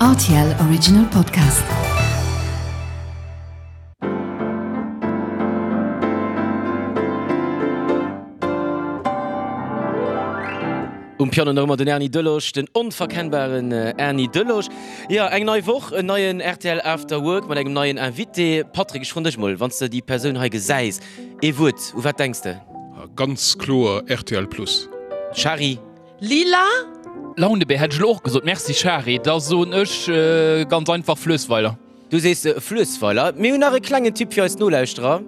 Rtl Original Podcast. Um Piano nach ëmmer den Erny Delosch, den onverkennbaren Erny Delosch. Jo, eng nei Woch, en neien rtl After Work mat engem neien Invité. Patrick, ech froen dech mol, wann s de déi Persoun hei gesäis, ee Wuert, u wat denks de? Ganz kloer rtl Plus. Shari. Lila? Launebär hätt ech elo och gesot. Merci Shari. Da soen ech ganz einfach Fluessweiler. Du sees Fluessweiler. Mir hunn nach e klengen Tipp fir eis Nolauschterer.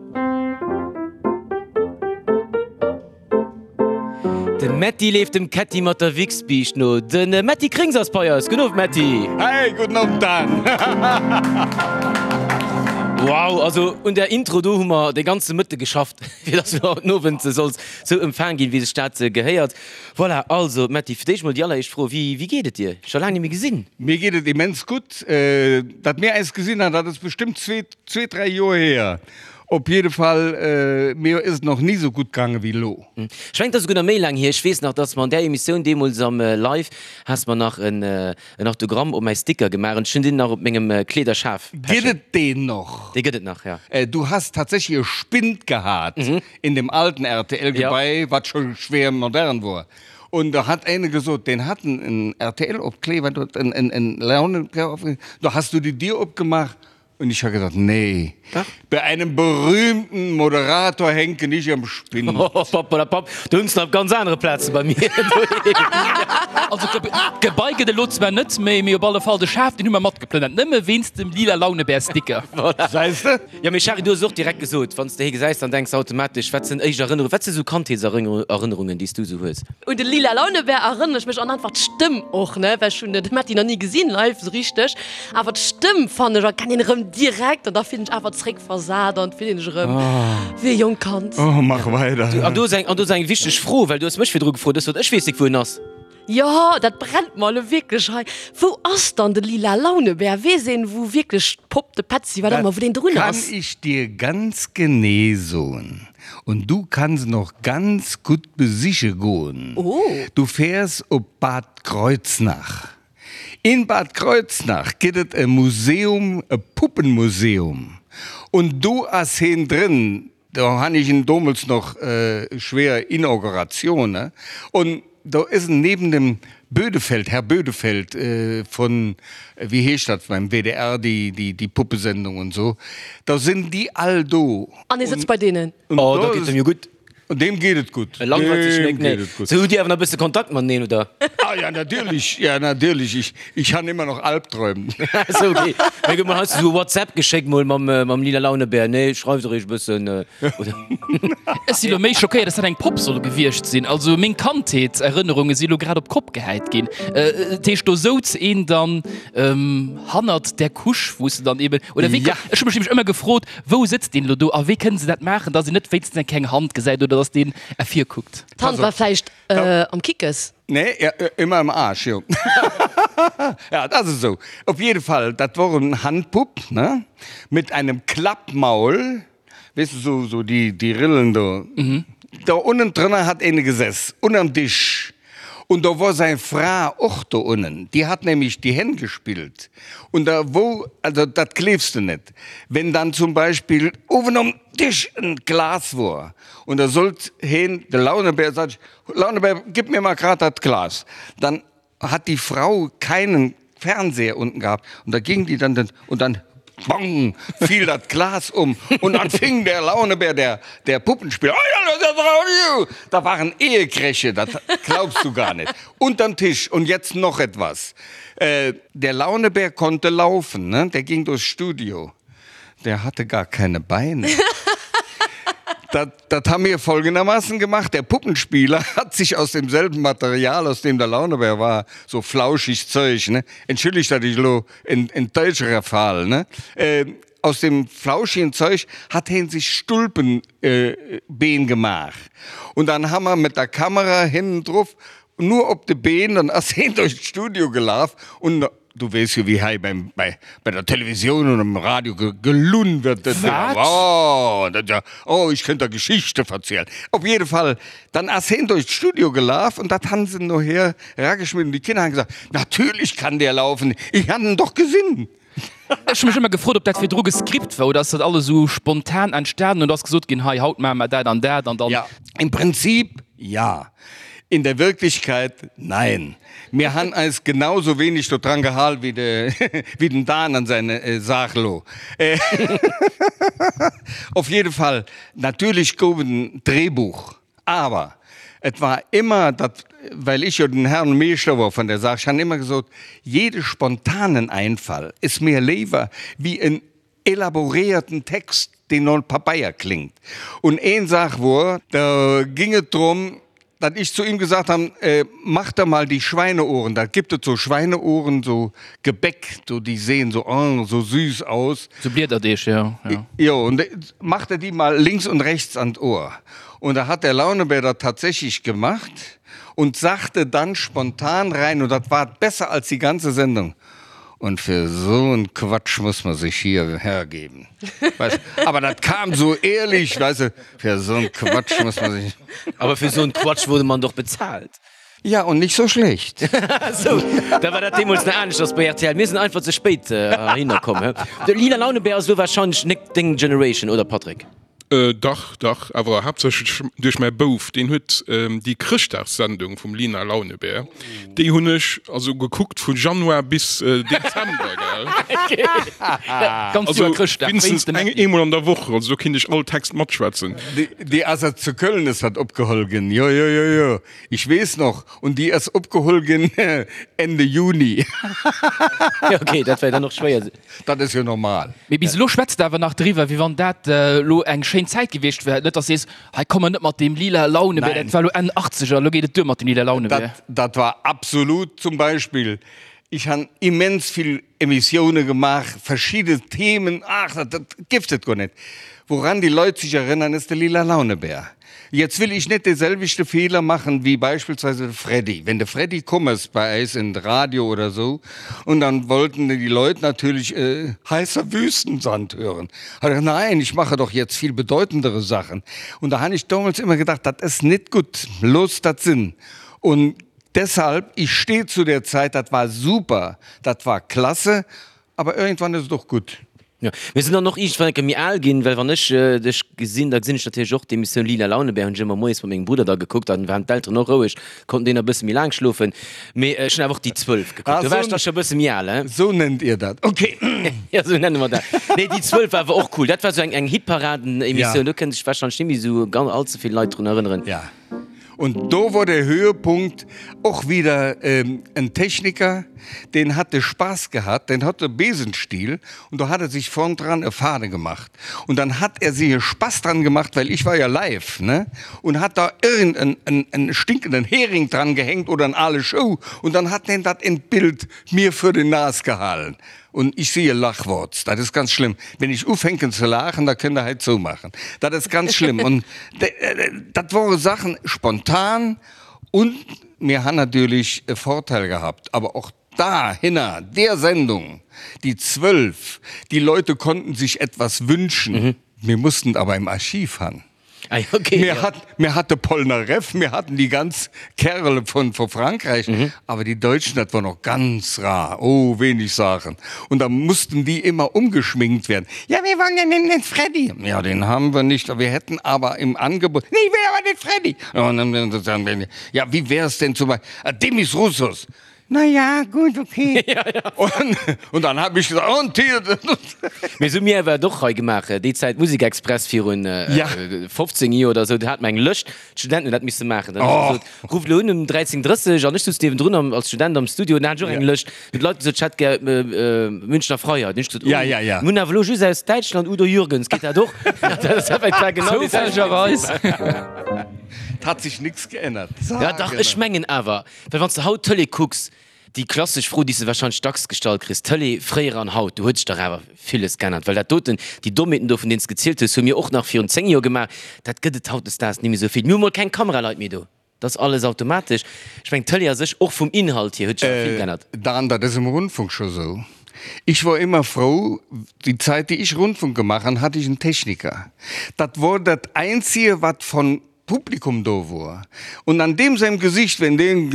De Metty leeft dem Ketty mat der Wichsbiischt no. De Metty Krings ass bei eis. Gudden Owend Metty. Hey, gudden Owend Dan. Wow, also un där Intro do hu mer de ganze Mëtte geschafft, fir dass du haut den Owend solls sou empfaang ginn, wéi sech dat gehéiert. Voilà, also Metty, fir d'éischt mol déi alleréischt Fro, Wéi, wéi geet et dir? Scho laang net méi gesinn. Mir geet et immens gutt. Datt mir äis gesinn han, dat ass bestëmmt zwee, zwee, dräi Joer hier. Op jidde Fall, mir ass et nach ni sou gutt gaange wéi elo. Ech mengen, et ass esouguer nach méi laang hier. Ech weess nach, datt mer an där Emissioun deemools am Live, has mer nach en, en Autogramm op mäi Sticker gemaach an ech hunn deen nach op mengem Kleederschaf Gëtt pechen. et deen noch? Dee gëtt et nach, ja. Du has tatsächlich e Spind gehat in dem alten RTL-Gebai, wat scho schwer modern wor. Und da hat eine gesot, deen hat en RTL-Opkleber, en, en, en Launenopkleber, da has du die Dier opgemaach Und ich ha gesagt, nee, bei einem berühmten Moderator hänke nicht am Spind. Pappelapapp, do hunn se nach op ganz anere Plaze bei mir doheem. Also d'Gebai gëtt elo zwar net méi, mee op alle Fall de Schaf, deen hu mer matgeplënnert, nëmme wéinst dem lila Launebär-Sticker. Voilà. Gesäis de? Jo, mee Shari, du hues et och direkt gesot, wann s de hie gesäis, dann denks de automatesch, wat sinn éischt Erënnerungen, wat si sou Kandheetserënnerungen, déi s du sou hues? Un de lila Launebär erënnere ech mech an einfach d'Stëmm och, ne, well ech hunn de Metty nach ni gesinn live sou richteg. Awer d'Stëmm fannen ech erkennt een erëm direkt an da fillen ech awer zréck versat an fillen ech erëm wéi e jonkt Kand. Oh, mach weider. An do ass eng, an do ass eng wichteg Fro, well du hues mech virdru gefrot, ech sot, ech weess nik wou en ass. Jo, dat brennt mer elo wierklech hei. Wou ass dann de lila Launebär? Weess een wou wierklech d'Popp, de Petzi, wat ëmmer, wou deen drun Kann ass? ich dir ganz genee soen. Und du kanns en och ganz gutt besiche goen. Oh. Du fäers op Bad Kreuznach. In Bad Kreuznach gëtt et e Museum, e Puppenmuseum, und do ass heen drënn, do han ich en domols noch schwer Inauguration, ne, und do is en neben dem Bödefeld, Herr Bödefeld von, wéi heescht dat beim WDR, déi, déi, déi Puppesendung und so, da sinn déi all do. An hie sëtzt bei deenen. Oh, da geet et em jo gutt. Deem geet et gutt. E langweilt sech Deem net, nee. geet et gutt. Sou, hutt Dir awer nach e bësse Kontakt mateneen, oder? Ah ja, natierlech, ja natierlech. Ich, ich han immer noch Albträum. Sou, okay. Mir gëtt mol heiansdo sou e WhatsApp geschéckt mol mam, mam lila Launebär, nee, schreift eréischt e bëssen, oder? Ech si lo méi schockéiert, dass dat eng Popp soll gewiescht sinn. Also meng Kandheetserënnerunge si lo grad op d'Kopp gehäit ginn. Dat heescht, do souz een dann hannert där Couche, wou s de dann eben, oder wéi? Ja. Ech hu mech nämlech ëmmer gefrot, Wou sëtzt deen elo do a wéi kënnen se dat maachen, dass een net wéinstens eng kleng Hand gesäit oder dass deen ervirkuckt? D'Hand war vläicht am Kickes. Nee, ëmmer am Aarsch, jo. Ja, et ass esou. Op jidde Fall, dat wor en Handpupp, ne, mit einem Klappmaul, weess de, sou, sou déi, déi Rillen do. Do unnen drënner hat eene gesäss, ënnerm Disch. Und do wor säi Fra och do unnen, déi hat nämlich die Hänn gespillt. Und da wou, also dat gleefs de net, wenn dann zum Beispill uewen um Tisch en Glas wor und da sollt heen, de Launebär, sat ech, Launebär, gib mir mal grad dat Glas, dann hat die Frau keinen Fernseher unten gehabt und da ging die dann den, und dann bong, fiel dat Glas um und dann fing der Launebär, der, der Puppenspieler, da waren Ehekräche, dat glaubst du gar nicht, unterm Tisch. Und jetzt noch etwas, der Launebär konnte laufen, ne, der ging durchs Studio, der hatte gar keine Beine. Dat, dat haben wir folgendermaßen gemacht, der Puppenspieler hat sich aus demselben Material, aus dem der Launebär war, so flauschig Zeug, ne, entschuldigt, dat ich elo en, en Deutscherer Fall, ne, aus dem flauschigen Zeug hat heen sich Stulpen, Been gemaach. Und dann haben wir mit der Kamera hinnen druff, nur op de Been, dann ass heen durch d'Studio gelaf und. Du weess jo wéi hei beim, bei, bei der Televisioun und am Radio ge, gelunn wird. Dat, Wat? Oh, dat, ja, oh, ich könnte da Geschichte verzielen. Op jede Fall, dann ass heen durch d'Studio gelaf und dat han se noher rageschmidden. Die Kinder han gesagt, natürlich kann der laufen, ich han en doch gesinn. Ech hu mech ëmmer gefrot, ob dat virdru gescript war oder ass dat alles esou spontan entstanen und ass gesot ginn, hei haut maache mer dat an dat an dann. Ja, im Prinzip ja. In der Wirklichkeit nein. Mir han eis genau sou wenig do dran gehal wéi de wéi den Dan an säin Saach lo. Auf jede Fall, natürlich gouf et en Drehbuch, awer et war immer dat, well ich jo den Herrn Meeschter wor vun der Saach, ech han immer gesot, jede spontanen Einfall is mir léiwer wéi en elaboréierten Text, deen no Pabeier klingt. Und een Saach wor, da ging et drum, datt ich zu ihm gesagt han, mach der mal die Schweineohren, da gibt et so Schweineohren, so Gebäck, so die sehen so, oh, so süß aus. So Bliederdeeg, jo, jo. Jo, und mach der die mal links und rechts an d'Ohr. Und da hat der Launebär dat tatsächlich gemacht und sagte dann spontan rein, und dat war besser als die ganze Sendung, Und fir so en Quatsch muss man sich hier hergeben. Weißt, aber dat kam so ehrlich, weißt du, fir so en Quatsch muss man sich. Aber fir so en Quatsch wurde man doch bezahlt. Ja, und nicht so schlecht. Sou, da war dat deemools nach aneschters bei rtl. Mir sinn einfach ze spéit heihinner komm, he? De Lina Launebär ass elo wahrscheinlech nek deng Generation, oder Patrick? Dach, dach, awer haaptsächlech duerch mäi Bouf, deen huet déi Chrëschtdagssendung vum Lina Launebär, déi hunn ech also gekuckt vu Januar bis Dezember, gell. Ganz Also Joer Chrëschtdag wéinstens wéinst dem eng, Äddi. eemol an der Woch, also do kinnt ech all Text matschwätzen. Déi ass a zu Köln ass dat opgeholl ginn, jo, jo, jo, jo, ich weess noch, und déi ass opgeholl ginn Ende Juni. Jo, okay, dat war dann och schwéier. Dat ass jo normal. Mee bis elo schwätzt de awer nach driwwer, wéi wann dat elo eng schéin Zäit gewiescht wär. Net, dass de sees, hei komm mer net mat deem lila Launebär, dat war elo Enn Achtzeger, elo geet et duer mat dem lila Launebär. Dat, dat war absolut zum Beispill, ich han immens vill Emissioune gemaach, verschidde Themen, ach, dat, dat gifft et guer net. Woran die Leut sich erinnern, ist de lila Launebär. Jetzt will ich net de selwechte Fehler machen wie beispielsweise de Freddy. Wenn de Freddy komm ass bei eis in Radio oder so und dann wollten die Leut natürlich heißer Wüstensand hören. Hat er gesagt, nein, ich mache doch jetzt viel bedeutendere Sachen. Und da han ich damals immer gedacht, dat ass net gutt, looss dat sinn. Und deshalb, ich steh zu der Zeit, dat war super, dat war klasse, aber irgendwann ist et och gutt. Jo, mir sinn dann och iergendwann eng Kéier méi al ginn, well wann ech dech gesinn, da gesinn ech natierlech och d'Emissioun Lila Launebär, hunn ech ëmmer moies mat mengem Brudder da gekuckt, dann waren d'Elteren och roueg, konnten déi nach e bësse méi laang schlofen. Mee ech hunn awer och déi 12 gekuckt, do war ech da scho e bësse méi al, hein. Sou nennt Dir dat, ok. Jo, sou nenne mer dat. Nee, déi 12 war awer och cool, dat war sou eng Hitparaden-Emissioun, do kënne sech warscheinlech net méi sou ganz all ze vill Leit drun erënneren. Ja. Und do wor der Höhepunkt och wieder en Techniker, deen hat de Spaß gehat, deen hat e Besenstiel und do hat er sich vorn dran e Fade gemacht und dann hat er sich e Spaß dran gemacht, well ich war ja live, ne, und hat da irgend en en en stinkenden Hering dran gehängt oder en ale Schou und dann hat deen dat in d'Bild mir für den Nas gehalen. Und ich sehe Lachworts, dat ist ganz schlimm. Wenn ich ufänken ze laachen, da kënnt Der hei zoumaachen. Dat ass ganz schlimm. Und dat wore Sachen spontan und mir han natürlich e Vorteil gehabt, aber och da hinner der Sendung, die 12, die Leute konnten sich etwas wünschen. Mir mussten aber im Archiv han. Ah, okay, Mir ja. hat, mir hatte Polnareff, mir hatten die ganz Kerle von, von Frankreich, mhm. aber die Deutschen, das war noch ganz rar. Oh, wenig Sachen. Und da mussten die immer umgeschminkt werden. Ja, wir wollen ja den, den Freddy. Ja, den haben wir nicht. Wir hätten aber im Angebot. Nee, ich will aber den Freddy. Und dann, ja, wie wäre es denn zum Beispiel? Ah, Demis Roussos. Na ja, gut, okay. Ja, ja. Und, und dann hab ich gesagt, und hier. Mee sou mir awer et och hei gemaach, déi Zäit Musikexpress virun Ja. 15 Joer oder sou, do hat mer eng Lëscht, d'Studenten hunn dat misse maachen. Dann hu Oh. se gesot, rufft elo un um 13:30 an ech souz niewendrun am, als Student am Studio, an da hat ech och eng Ja. Lëscht. Hunn d'Leit gesot, ech hätt gär Münchner Freiheit. Hunn ech gesot, oh, Ja, ja, ja. mir hunn awer elo just aus Däitschland Udo Jürgens, geet dat och? Dat ass effektiv genau déi selwecht. Zoufällegerweis. Et hat sich nix geännert. Ja dach, ech mengen awer, Well wann s de haut Tëlee kucks, déi klassesch Fro, déi s de warscheinlech dacks gestallt kriss, Tëlee fréier an haut, do huet sech dach awer villes geännert. Well dat doten, déi Dommheeten do, vun deenen s de gezielt hues, hu mir och nach virun 10 Joer gemaach, dat gëtt et hautdesdaags ni méi esou vill. Mir hu mol keng Kameraleit méi do. Dat ass alles automatesch. Ech mengen, d'Tëlee a sech, och vum Inhalt hier, huet sech awer vill geännert. Dan, dat ass am Rundfunk scho sou. Ich wor immer frou, die Zeit, die ich Rundfunk gemacht han, hatte ich en Techniker. Dat wor dat Einzige, wat von Publikum do wor. Und an deem seinem Gesicht, wenn deen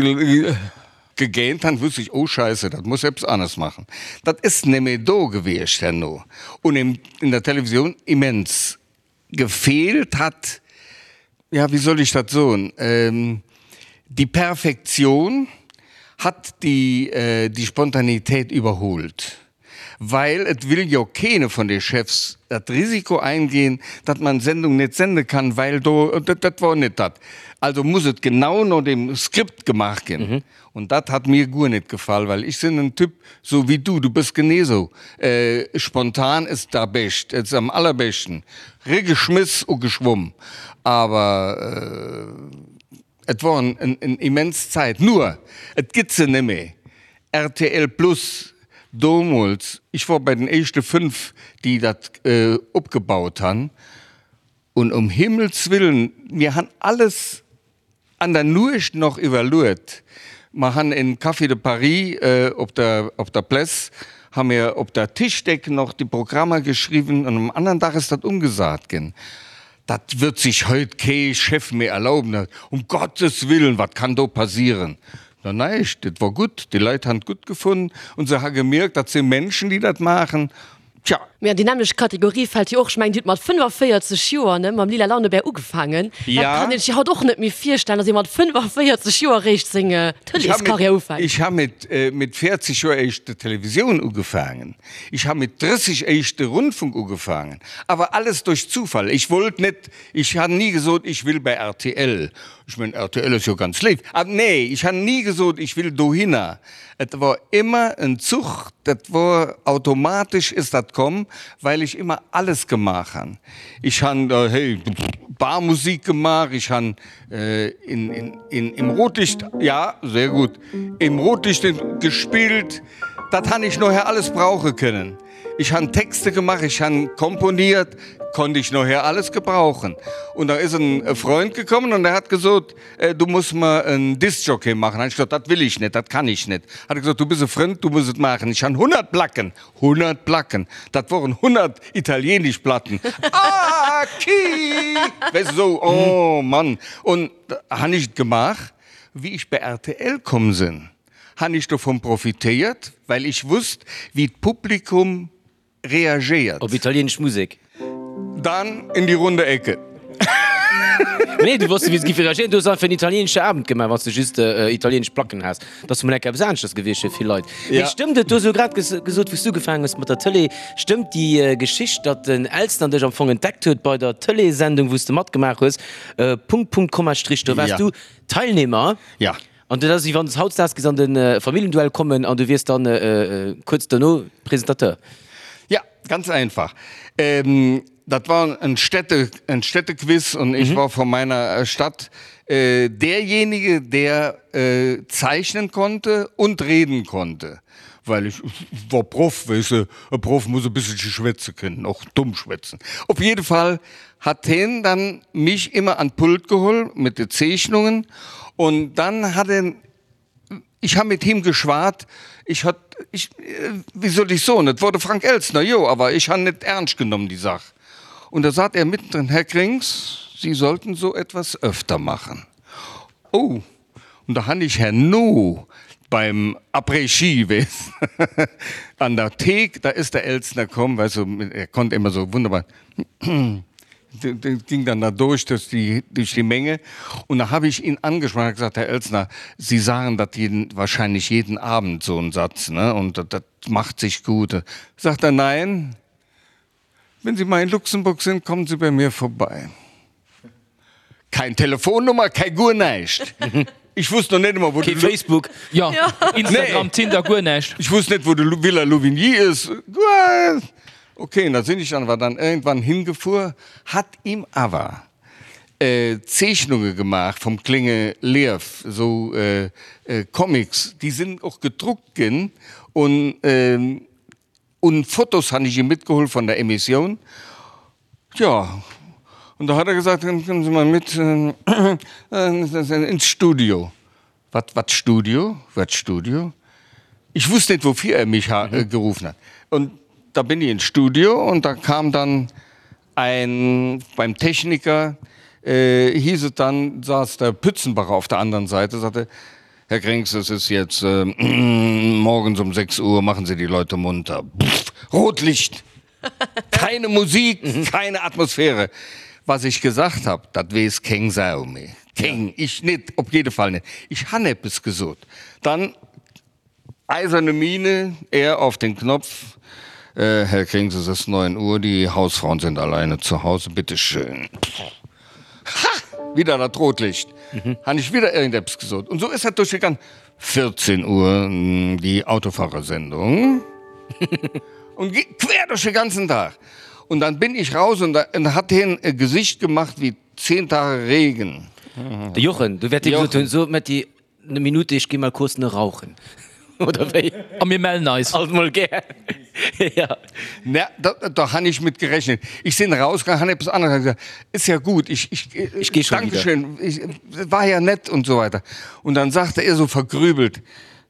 gegähnt han, wusst ich, oh Scheiße, dat muss eppes anescht machen. Dat is nemmi do gewiescht herno. Und in der Televisioun immens. Gefehlt hat, ja, wie soll ich dat soen, die Perfektion hat die, die Spontanität überholt, weil et will jo keene von de Chefs dat Risiko eingehen, datt man Sendung net sende kann, weil do, dat wor net dat. Also muss et genau no dem Skript gemaach ginn. Und dat hat mir guer net gefall, well ech sinn en Typ sou wéi du, du bëss genee sou, spontan is da bescht, is am allerbeschten, regeschmiss u geschwumm. Awer et wor en immens Zäit, nur et gitt se nemmi. Rtl Plus domols, ech wor bei den éischte 5 déi dat opgebaut han, und um Himmels Willen, mir han alles An der Nuecht noch iwwerluet. Mer han en Café de Paris op der op der Pless, ha mir op der Tischdeck noch déi Programmer geschriwwen an um andern Dag is dat umgesat gin. Dat würd sich heut kee Chef méi erlauben. Um Gottes Willen, wat kann do passieren? Na näischt, et wor gutt, déi Leit han et gutt gefunn und se ha gemierkt, dat si Menschen, déi dat maachen. Tja. Mee an déi nämmlecht Kategorie fält jo och, ech mengen, Dir hutt mat 45 Joer, ne, mam Lila Launebär ugefaangen. Dat kann een sech jo haut och net méi virstellen, datt ee mat 45 Joer eréischt seng Tëleeskarriär ufänkt. Ech ha mit 40 Joer éischt de Televisioun ugefaangen. Ech ha mit 30 éischt de Rundfunk ugefaangen. Awer alles duerch Zufall. Ech wollt net, ech han ni gesot, ech will bei rtl. Ech mengen, rtl ass jo ganz léif. Ah nee, ech han ni gesot, ech will dohinner. Et wor immer en Zuch, dat wor automatisch is dat komm, weil ich immer alles gemaach han. Ich han hey Barmusik gemaach, ich han in in in im Rotlicht, ja sehr gut, im Rotlicht gespillt, dat han ich noher alles brauche können. Ich han Texte gemaach, ich han komponiert, konnte ich noher alles gebrauchen. Und da is en Freund gekommen und der hat gesot, Du muss mer en Discjockey maachen. Han ech gesot, Dat will ich net, dat kann ich net. Hat e gesot, Du bist e Frënd, du muss et maachen. Ech han 100 Placken, 100 Placken, dat woren 100 italienisch Platten. Ah, ki! Weess de, sou, oh Mann. Und han ech et gemaach. Wéi ech bei rtl komm sinn, han ech dovun profitéiert, well ech wusst, wéi d'Publikum reagéiert. Op italienesch Musek. Dann in die runde Ecke. Nee, du wosst wéi se giffe reagéieren. Du hues einfach en italienesche Abend gemaach, wann s de just italienesch Placken has. Dat ass mol enk eppes aneschters gewiescht fir vill Leit. Mee stëmmt et, du hues elo grad gesot, wou s du ugefaangen hues mat der Tëlee, stëmmt déi Geschicht, datt den Elsner dech am Fong entdeckt huet bei der Tëleessendung, wou s de matgemaach hues, Punkt, Punkt, Komma, Strich, do waars du Teilnehmer? Ja. An dat ass wéi wann s hautdesdaags géifs an de Familljenduell kommen an du wiers dann kuerz dono Presentateur. Ja, ganz einfach. Dat war en Städte, en Städtequiz und ich war von meiner Stadt derjenige, der zeichnen konnte und reden konnte, weil ich war Proff, weess de, e Proff muss e bësselche schwätze kënnen, och domm schwätzen. Op jidde Fall hat hien dann mich immer an d'Pult geholl mit de Zeechnungen und dann hat en, ich ha mit him geschwat, ich hat, ich, wéi soll ich soen, et wor de Frank Elstner, jo, awer ich han net ernst genommen déi Sach. Und da sat er mittendrin, Herr Krings, Sie sollten so etwas öfter machen. Oh, Und da han ich herno beim Après-Ski, weess, an der Thek, da is der Elstner komm, weißt du, er konnt immer so wunderbar, ging dann da durch, durch die, durch die Menge. Und da hab ich ihn angesprochen, hab gesagt, Herr Elstner, Sie sagen dat jeden, wahrscheinlich jeden Abend so einen Satz, ne, und dat macht sich gut. Sagt er, nein, Wenn Sie mal in Luxemburg sind, kommen Sie bei mir vorbei. Kein Telefonnummer, kei guer näischt. Ich wusst noch net emol, wou de. Kee Facebook. Jo, Instagram, Tinder, guer näischt. Ich wusst net, wou de Villa Louvigny is. Okay, da sinn ech awer dann irgendwann hingefuer, hat ihm awer Zeechnunge gemaach vum klénge Liew, esou Comics, déi sinn och gedruckt ginn un. Un Fotos han ech ihm mitgeholl von der Emissioun. Tja, und. Und da hat er gesagt, kommen Sie mal mit äh, äh, ins Studio. Wat, wat Studio? Wat Studio? Ich wusste nicht, wofür er mich mhm. Äh, gerufen hat. Und da bin ich ins Studio und da kam dann ein beim Techniker äh, hieß es dann saß der Pützenbacher auf der anderen Seite sagte Herr Krings, es ist jetzt äh, morgens um 6 Uhr machen Sie die Leute munter. Pff, Rotlicht. Keine Musik, mhm. keine Atmosphäre. Was ich gesagt habe, dat wees keng Sau méi. Keng, ich net, op jede Fall net. Ich han eppes gesot. Dann eiserne Miene, er auf den Knopf. Äh, Herr Krings, es ist 9 Uhr, die Hausfrauen sind alleine zu Hause, bitte schön. Ha! Wieder dat Rotlicht. Mhm. Han ich wieder irgendeppes gesot. Und so ist dat durchgegangen. 14 Uhr, die Autofahrersendung. Und quer durch den ganzen Tag. Und dann bin ich raus und da und hat hien e Gesicht gemacht wie 10 Tage Regen. De Jochen, du wäert dir gesot hunn, so Metty, ne Minute, ech gi mal kurz ne rauchen. Oder wéi? A mir mellen eis. Alt mol gär. Ja. Na, da, da han ich mit gerechnet. Ich sinn rausgegangen, han eppes aneres gesagt. Ist ja gut, ich, ich, Ich geh schon wieder. Dankeschön, ich, war ja nett und so weiter. Und dann sagte er so vergrübelt,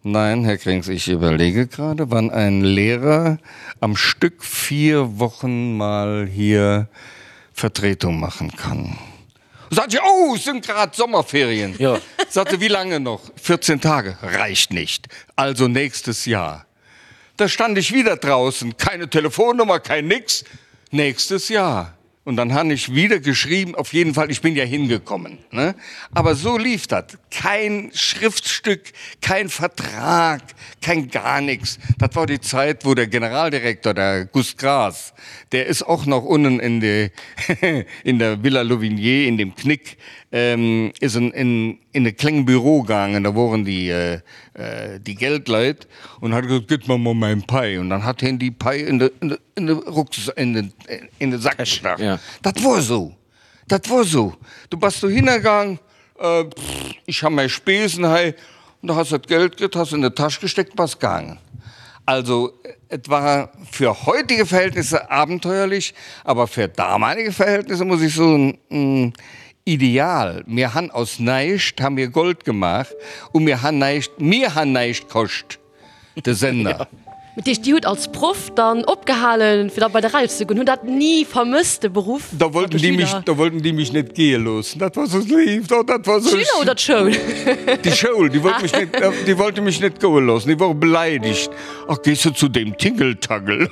Nein, Herr Krings, ich überlege gerade, wann ein Lehrer am Stück vier Wochen mal hier Vertretung machen kann. Sagt sie, oh, es sind gerade Sommerferien. Ja. Sagte, wie lange noch? 14 Tage. Reicht nicht. Also nächstes Jahr. Da stand ich wieder draußen. Keine Telefonnummer, kein nix. Nächstes Jahr. Und dann han ich wieder geschrieben, auf jeden Fall, ich bin ja hingekommen. Ne? Aber so lief dat. Kein Schriftstück, kein Vertrag, kein gar nichts. Dat war die Zeit, wo der Generaldirektor, der Gust Gras, der ist auch noch unten in, die, in der Villa Louvigné, in dem Knick, ähm, ist in, in, in e kleng Büro gaangen, da woren déi, äh, déi Geldleit und hat gesot, Gitt mer mol mäin Pai. Und dann hat hien déi Pai in de, in de, in de Rucks, in den, in de Sack gestach. Ja. Dat wor esou. Dat wor esou. Du bass dohinner gaang, äh, pff, ich ha mäi Spesen hei, und da has de d'Geld kritt, has in de Täsch gesteckt, bass gaangen. Also, et war für heutige Verhältnisse abenteuerlich, aber für damalige Verhältnisse, muss ich soen, ideal. Mir han aus näischt ha mir Gold gemaach u mir han näischt, mir han näischt koscht, de Sender. Dat heescht, Dir hutt als Proff dann opgehalen, fir da bei de Radio ze goen? Hutt dat ni vermësst, de Beruff Da mat wollten de déi mech, Schüler? da wollten déi mech net gehe loossen. Dat war sou lief, oh, dat war sou. D'Schüler oder d'Schoul? Déi Schoul, déi wollt mech net, déi wollte mech net goe loossen. Déi wore beleidegt. Ach, gees du zu deem Tingeltangel?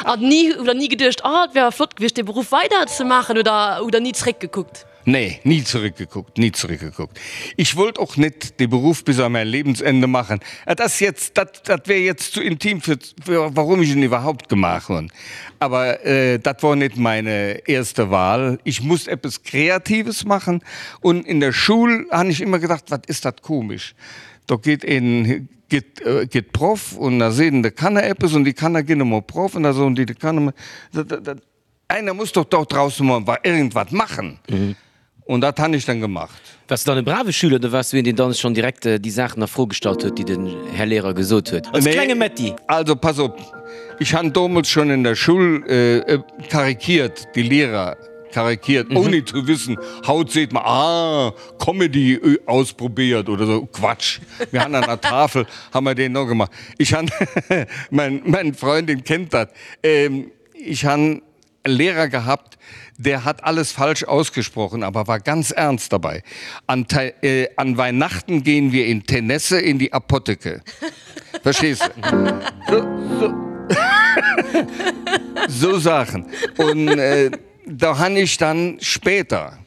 An ni, oder ni geduecht, oh, et wär awer flott gewiescht, dee Beruff weider ze maachen, oder hutt Der ni zeréckgekuckt? Nee, nie zurückgeguckt, nie zurückgeguckt. Ich wollt och net dee Beruff bis an mäin Lebensende machen. Et ass jetzt, dat, dat wär jetzt zu intim fir, fir warum ich en iwwerhaupt gemaach hunn. Aber dat wor net meine erste Wahl. Ich musst eppes Kreatives machen und in der Schul han ich immer gedacht, wat is dat komisch. Do geet een, geet, geet Proff und da seet en de Kanner eppes und déi Kanner ginn emol Proff und da soen déi de Kanner, dat, dat, dat, Einer muss doch dort draußen mal irgendwas machen. Und dat han ich dann gemacht. Wars du dann e brave Schüler oder wars du een, deen dann schonn direkt déi Saachen a Fro gestallt huet, déi den Här Lehrer gesot huet? Als klenge Metty? Also pass op, ich han domols schon in der Schul karikiert, die Lehrer karikiert, ohne zu wissen, haut seet mer, ah, Comedy ausprobiert oder so, Quatsch. Mir han an der Tafel, han mer deen no gemacht. Ich han, mein, mein Freundin kennt dat, Ich han Lehrer gehabt, der hat alles falsch ausgesprochen, aber war ganz ernst dabei. An, äh, an Weihnachten gehen wir in Tenesse in die Apotheke. Verstehst du? So, so. so Sachen. Und äh, da han ich dann später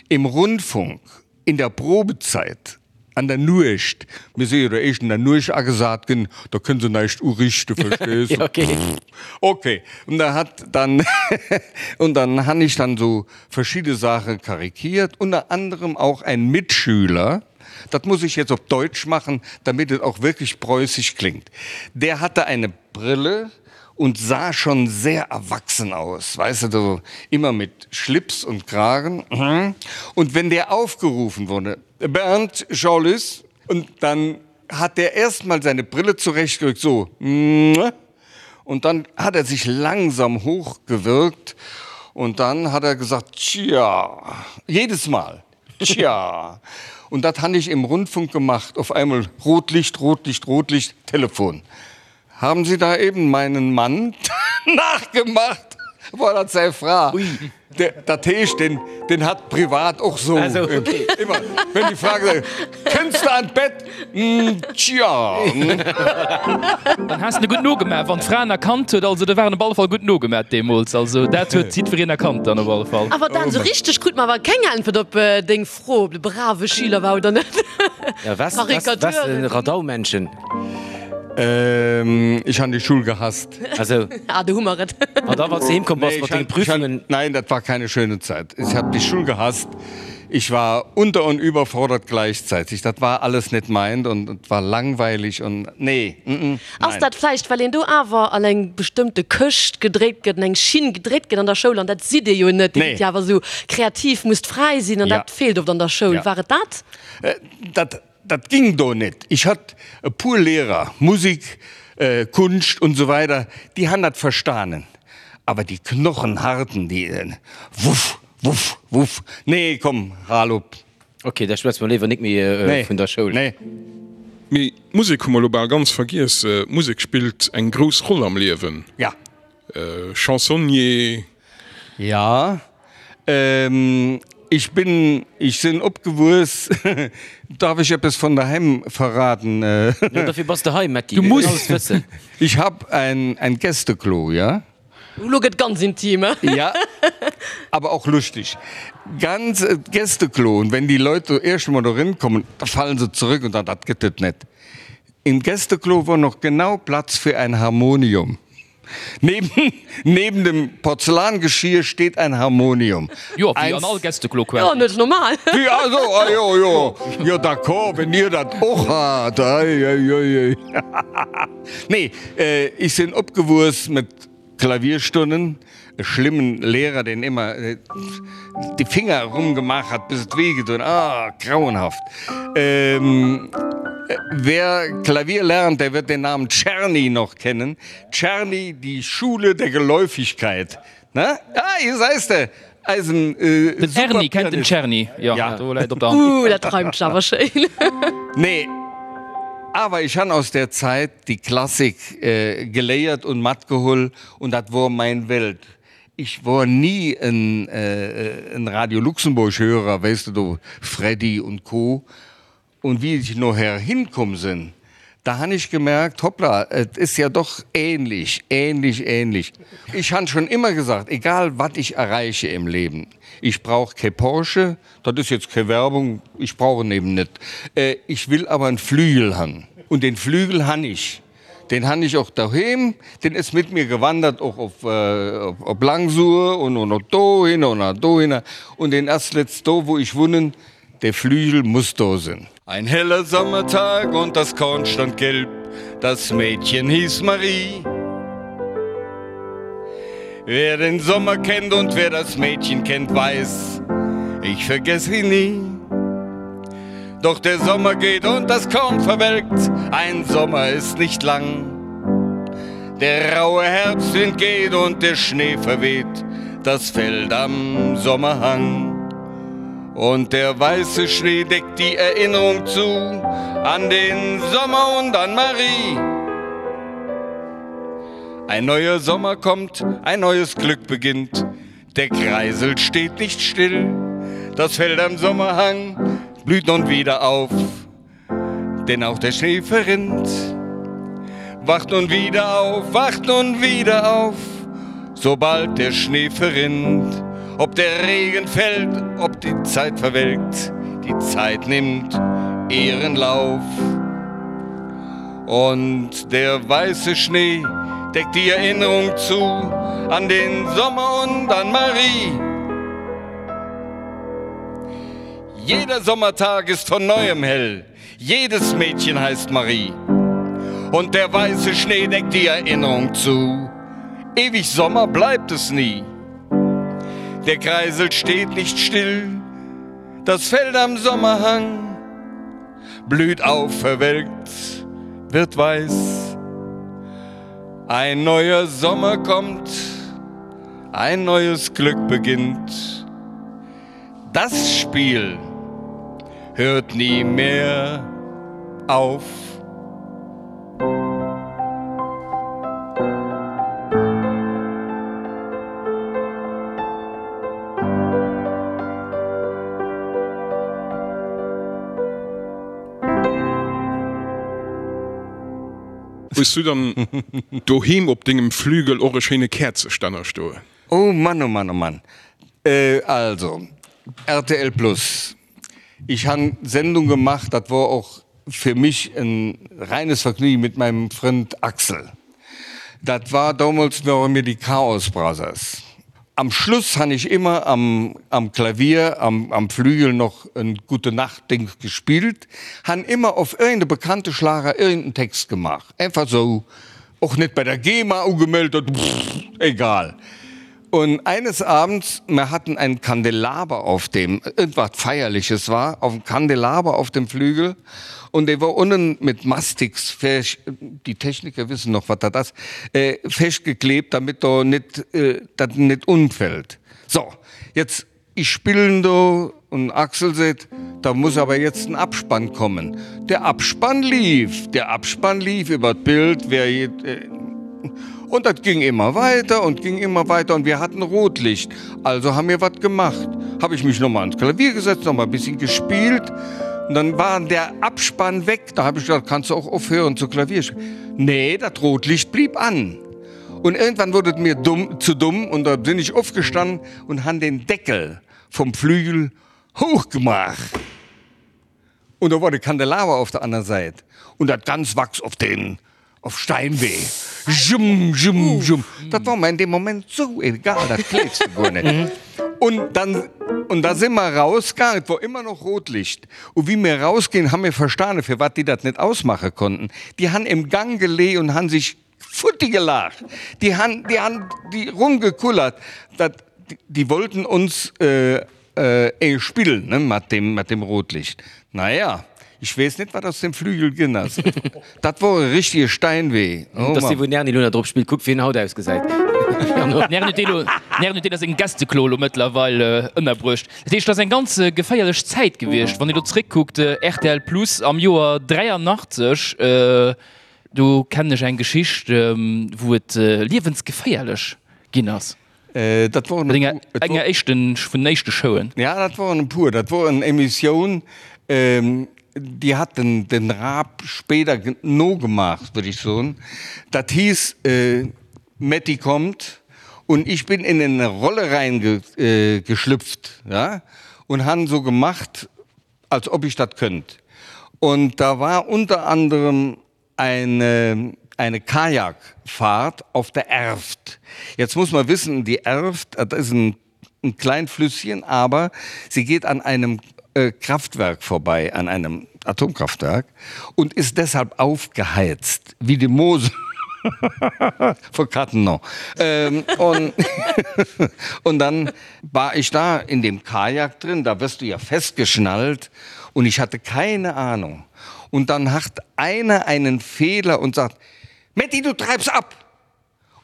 im Rundfunk in der Probezeit An der Nuecht, mir si jo der éischt an der Nuecht agesat ginn, da kënne se näischt uriichte, verstees de? Okay. Okay. Und da hat dann, und dann han ich dann so verschiedene Sache karikiert, unter anderem auch ein Mitschüler, dat muss ich jetzt op Deutsch machen, damit et auch wirklich preußisch klingt, der hatte eine Brille und sah schon sehr erwachsen aus, weißt du, so immer mit Schlips und Kragen. Und wenn der aufgerufen wurde, Bernd Jean-Lys, und dann hat der erst mal seine Brille zurechtgerückt, so, und dann hat er sich langsam hochgewirkt. Und dann hat er gesagt, tja, jedes Mal, tja. Und dat han ich im Rundfunk gemacht, auf einmal Rotlicht, Rotlicht, Rotlicht, Telefon. Haben Sie da eben meinen Mann nachgemacht? War dat säi Fra? Dat heescht, den, den hat privat och sou Also, okay. ëmmer, wenn déi Fra gesot huet, Kënns de an d'Bett? Tja. Dann has de gutt nogemaach, wann d'Fra en erkannt huet. Also, do war en op alle Fall gutt nogemaach deemools. Also, dat huet jiddwereen erkannt dann op alle Fall. Awer Dan, sou richteg krut mer awer keng Äntwert op deng Fro, ob de brave Schüler war oder net. Ja, was, was, was, Radaumännchen? Ähm, ich han die Schul gehasst. Also. Ah, do hu mer et. An da wann s de heem komm bass Nee, mat ich denge han, ich han, Prüfungen. nein, dat war keine schöne Zeit. Ich hab die Schul gehasst. Ich war unter und überfordert gleichzeitig. Dat war alles net meint und et war langweilig und nee, mm, mm, Ass nein. dat vläicht, well een do awer an eng bestëmmte Këscht gedréckt gëtt, an eng Schinn gedréckt gëtt an der Schoul, an dat sidd Dir jo net. Dir Nee. sidd jo awer esou kreativ, musst fräi sinn, an Ja. dat feelt oft an der Schoul. Ja. War et dat? Dat Dat ging do net. Ich hat e puer Lehrer, Musik, Kunscht und so weiter, déi han dat verstanen. Awer déi Knochenharten, déi wuff, wuff, wuff, nee, komm, hal op. Ok, da schwätze mer léiwer nik méi vun der Schoul. Nee. Mee d'Musek hu mer elo bal ganz vergiess. D'Musek spillt eng grouss Roll am Liewen. Ja. Chansonnier. Ja, ich bin, ich sinn opgewuess, darf ich eppes von daheim verraten? Jo, dofir bass de hei, Metty, Du du muss. alles wëssen. Ich hab ein, ein Gästeklo, ja? Elo gëtt ganz intim, he? Ja, aber auch lustig. Ganz Gästeklo, und wenn die Leute erst emol dorin kommen, da fallen se zurück und sagen, dat gëtt et net. Im Gästeklo wor noch genau Platz für ein Harmonium. Neben, neben dem Porzellangeschirr steht ein Harmonium. Jo, wéi an all Gästeklo Jo, quasi. net normal. Wéi, also, ah jo, jo, jo, d'accord, wenn dir dat och hat, ei, ei, ei, ei. Nee, ich sinn opgewuess mit Klavierstunden, e schlimmen Lehrer, deen ëmmer déi Finger erumgemaach hat, bis et wéi gedoen, ah, grauenhaft. Wer Klavier lernt, der wird den Namen Czerny noch kennen. Czerny, die Schule der Geläufigkeit, ne? Ah, hier seis de, eisen Den Erny kennt den Superpianist. Czerny, jo, Ja. do läit op der Hand. Uh, dat reimt sech awer schéin. Nee, awer ich han aus der Zeit die Klassik geléiert und matgeholl und dat wor mein Welt. Ich wor nie en en Radio Luxemburg Hörer, weess de, do Freddy und Co. Und wie ich noher hinkomm sinn, da han ich gemerkt, hoppla, et is ja doch ähnlich, ähnlich, ähnlich. Ich han schon immer gesagt, egal wat ich erreiche im Leben, ich brauch ke Porsche, dat is jetzt ke Werbung, ich brauch en eben net, ich will aber en Flügel han. Und den Flügel han ich. Den han ich och doheem, den is mit mir gewandert och op op Langsur und und och dohinner und och dohinner und den ass letzt do wo ich wunnen, Der Flügel muss do sinn. Ein heller Sommertag und das Korn stand gelb, das Mädchen hieß Marie. Wer den Sommer kennt und wer das Mädchen kennt, weiß, ich vergess sie nie. Doch der Sommer geht und das Korn verwelkt, ein Sommer ist nicht lang. Der raue Herbstwind geht und der Schnee verweht das Feld am Sommerhang. Und der weiße Schnee deckt die Erinnerung zu an den Sommer und an Marie. Ein neuer Sommer kommt, ein neues Glück beginnt. Der Kreisel steht nicht still. Das Feld am Sommerhang blüht nun wieder auf, denn auch der Schnee verrinnt. Wacht nun wieder auf, wacht nun wieder auf, sobald der Schnee verrinnt. Ob der Regen fällt, ob die Zeit verwelkt, die Zeit nimmt ihren Lauf. Und der weiße Schnee deckt die Erinnerung zu an den Sommer und an Marie. Jeder Sommertag ist von neuem hell, jedes Mädchen heißt Marie. Und der weiße Schnee deckt die Erinnerung zu. Ewig Sommer bleibt es nie. Der Kreisel steht nicht still, das Feld am Sommerhang blüht auf, verwelkt, wird weiß. Ein neuer Sommer kommt. Ein neues Glück beginnt. Das Spiel hört nie mehr auf. Hues du dann doheem op dengem Flügel och e schéine Käerzestänner stoen? Oh Mann, oh Mann, oh Mann. Also, rtl Plus, ich han Sendung gemacht, dat wor och fir mich en reines Vergnügen mit meinem Frënd Axel. Dat war damals ware mir die Chaos Brothers. Am Schluss han ich immer am am Klavier am am Flügel noch en Gute Nacht Ding gespielt, han immer auf irgende bekannte Schlager irgenden Text gemacht, einfach sou, och net bei der GEMA ugemellt, pff, egal. Und eines Abends, mir hatten einen Kandelaber auf dem, irgendwas Feierliches war, auf dem Kandelaber auf dem Flügel und der war unten mit Mastix, die Techniker wissen noch, was das ist, äh, festgeklebt, damit da nicht, äh, das nicht umfällt. So, jetzt, ich spielen do und Axel seht, da muss aber jetzt ein Abspann kommen. Der Abspann lief, der Abspann lief über das Bild, wer, äh, und das ging immer weiter und ging immer weiter und wir hatten Rotlicht. Also haben wir was gemacht. Habe ich mich nochmal ans Klavier gesetzt, nochmal ein bisschen gespielt und dann war der Abspann weg. Da habe ich gesagt, kannst du auch aufhören zu Klavier. Nee, das Rotlicht blieb an. Und irgendwann wurde es mir dumm, zu dumm und da bin ich aufgestanden und han den Deckel vom Flügel hochgemacht. Und da war de Kandelaber auf der anderen Seite. Und dat ganz Wachs auf den auf Steinwee. Jum, jum, jum. Dat war mir in dem Moment so egal, dat gleefs de guer net. Und dann, und da si mer rausgaangen, et wor ëmmer noch Rotlicht. Und wéi mir rausginn, hu mir verstane, firwat déi dat net ausmache konnten. Déi han im Gang gelee und han sich futti gelacht. Déi han, déi han déi rumgekullert. Dat, déi wollten uns äh, äh, spillen, ne, mat dem, mat dem Rotlicht. Naja, ich weess net, wat aus dem Flügel ginn ass. Dat wor e richtige Steinwee. Oh Dass dee wou den Erny lo nach drop spillt, kuck wéi en haut ausgesäit. Den Erny huet dee lo, den Erny huet deen a sengem Gästeklo lo mëttlerweil ënnerbruecht. Dat heescht, dat ass eng ganz geféierlech Zäit gewiescht, wann ee lo zréckkuckt, rtl Plus am Joer 83, do kennen ech eng Geschicht, wou et liewensgeféierlech ginn ass. Dat woren e puer. Enger éischten, vun den éischte Showen. Ja, dat woren e puer. Dat wor en Emissioun, déi hat den, den Raab spéider nogemaach, würd ich soen. Dat hiess Metty kommt und ich bin in ene Rolle reingeschlüpft, ja, und han so gemacht, als ob ich dat könnt. Und da war unter anderem eine, eine Kajakfahrt auf der Erft. Jetzt muss man wissen, die Erft, das ist ein, ein klein Flüsschen, aber sie geht an einem äh, Kraftwerk vorbei, an einem Atomkraftwerk und ist deshalb aufgeheizt, wie die Mosel. Vor Kattenau. Ähm, und, und dann war ich da in dem Kajak drin, da wirst du ja festgeschnallt und ich hatte keine Ahnung. Und dann hat einer einen Fehler und sagt: Matti, du treibst ab!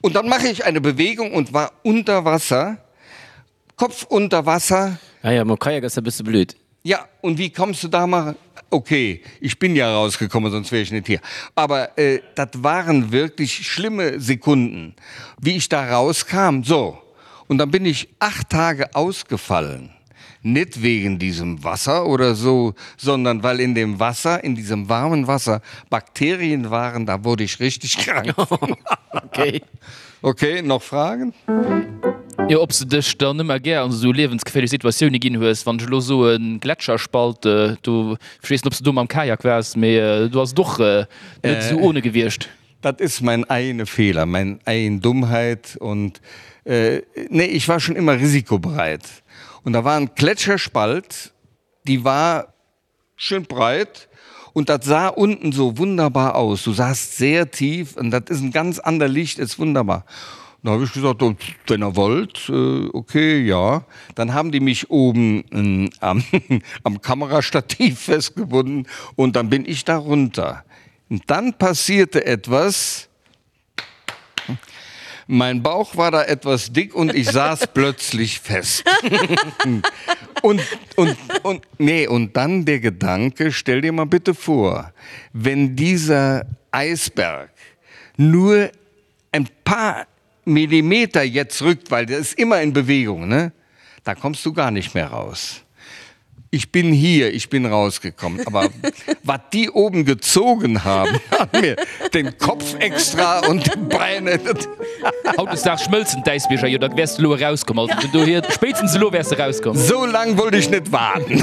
Und dann mache ich eine Bewegung und war unter Wasser, Kopf unter Wasser. Ah ja, mam Kajak ass dat e bësse blöd. Ja, und wie kommst du da mal? Okay, ich bin ja rausgekommen, sonst wäre ich nicht hier. Aber äh, das waren wirklich schlimme Sekunden, wie ich da rauskam. So, und dann bin ich acht Tage ausgefallen. Nicht wegen diesem Wasser oder so, sondern weil in dem Wasser, in diesem warmen Wasser Bakterien waren, da wurde ich richtig krank. Okay. Okay, noch Fragen? Jo, ob s de dech dann ëmmer gär an esou liewensgeféierlech Situatioune ginn hues. Wann ech elo soen Gletscherspalt, do, ech weess net, ob s de do mam Kajak waars, mee do ass et och net esou ohne gewiescht. Dat is mein eigene Fehler, mein eigen Dummheit und nee, ich war schon immer risikobereit. Und da war ein Gletscherspalt, die war schön breit und dat sah unten so wunderbar aus. Du sahst sehr tief und dat ist ein ganz ander Licht, ist wunderbar. Da habe ich gesagt, oh, wenn ihr wollt, äh, okay, ja. Dann haben die mich oben äh, am, am Kamerastativ festgebunden und dann bin ich da runter. Und dann passierte etwas. Mein Bauch war da etwas dick und ich saß plötzlich fest. Und, und, und, nee, und dann der Gedanke, stell dir mal bitte vor, wenn dieser Eisberg nur ein paar Millimeter jetzt rückt, weil der ist immer in Bewegung, ne? Da kommst du gar nicht mehr raus. Ich bin hier, ich bin rausgekommen. Aber was die oben gezogen haben, hat mir den Kopf extra und die Beine. Hautdesdaags schmëlzen d'Äisbierger jo, da wäers de elo erauskomm. Also vun dohier, spéitstens elo wäers de erauskomm. Sou lang wollt ech net waarden.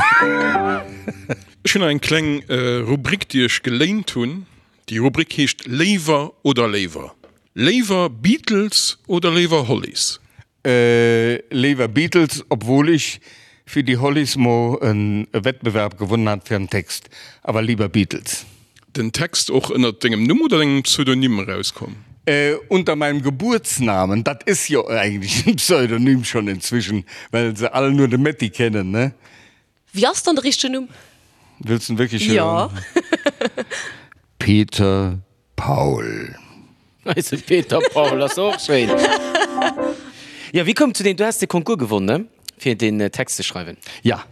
Ech hunn nach eng kleng Rubrik, déi ech geléint hunn. Déi Rubrik heescht Léiwer oder léiwer. Léiwer Beatles oder léiwer Hollies? Léiwer Beatles, obwohl ich fir die Hollies mo en Wettbewerb gewonnen hat fir en Text, awer lieber Beatles. Den Text och ënnert dengem Numm oder dengem Pseudonym erauskomm? Unter meinem Geburtsnamen, dat is jo eigentlich en Pseudonym schon inzwischen, well se all nur de Metty kennen, ne? Wéi ass dann de richtegen Numm? Wëlls den wierklech hören? Jo. Peter Paul. Eise Peter Paul ass och schéin. Jo, wéi koum zu deem, du has de Concours gewonnen, ne, fir den Text ze schreiwen? Ja,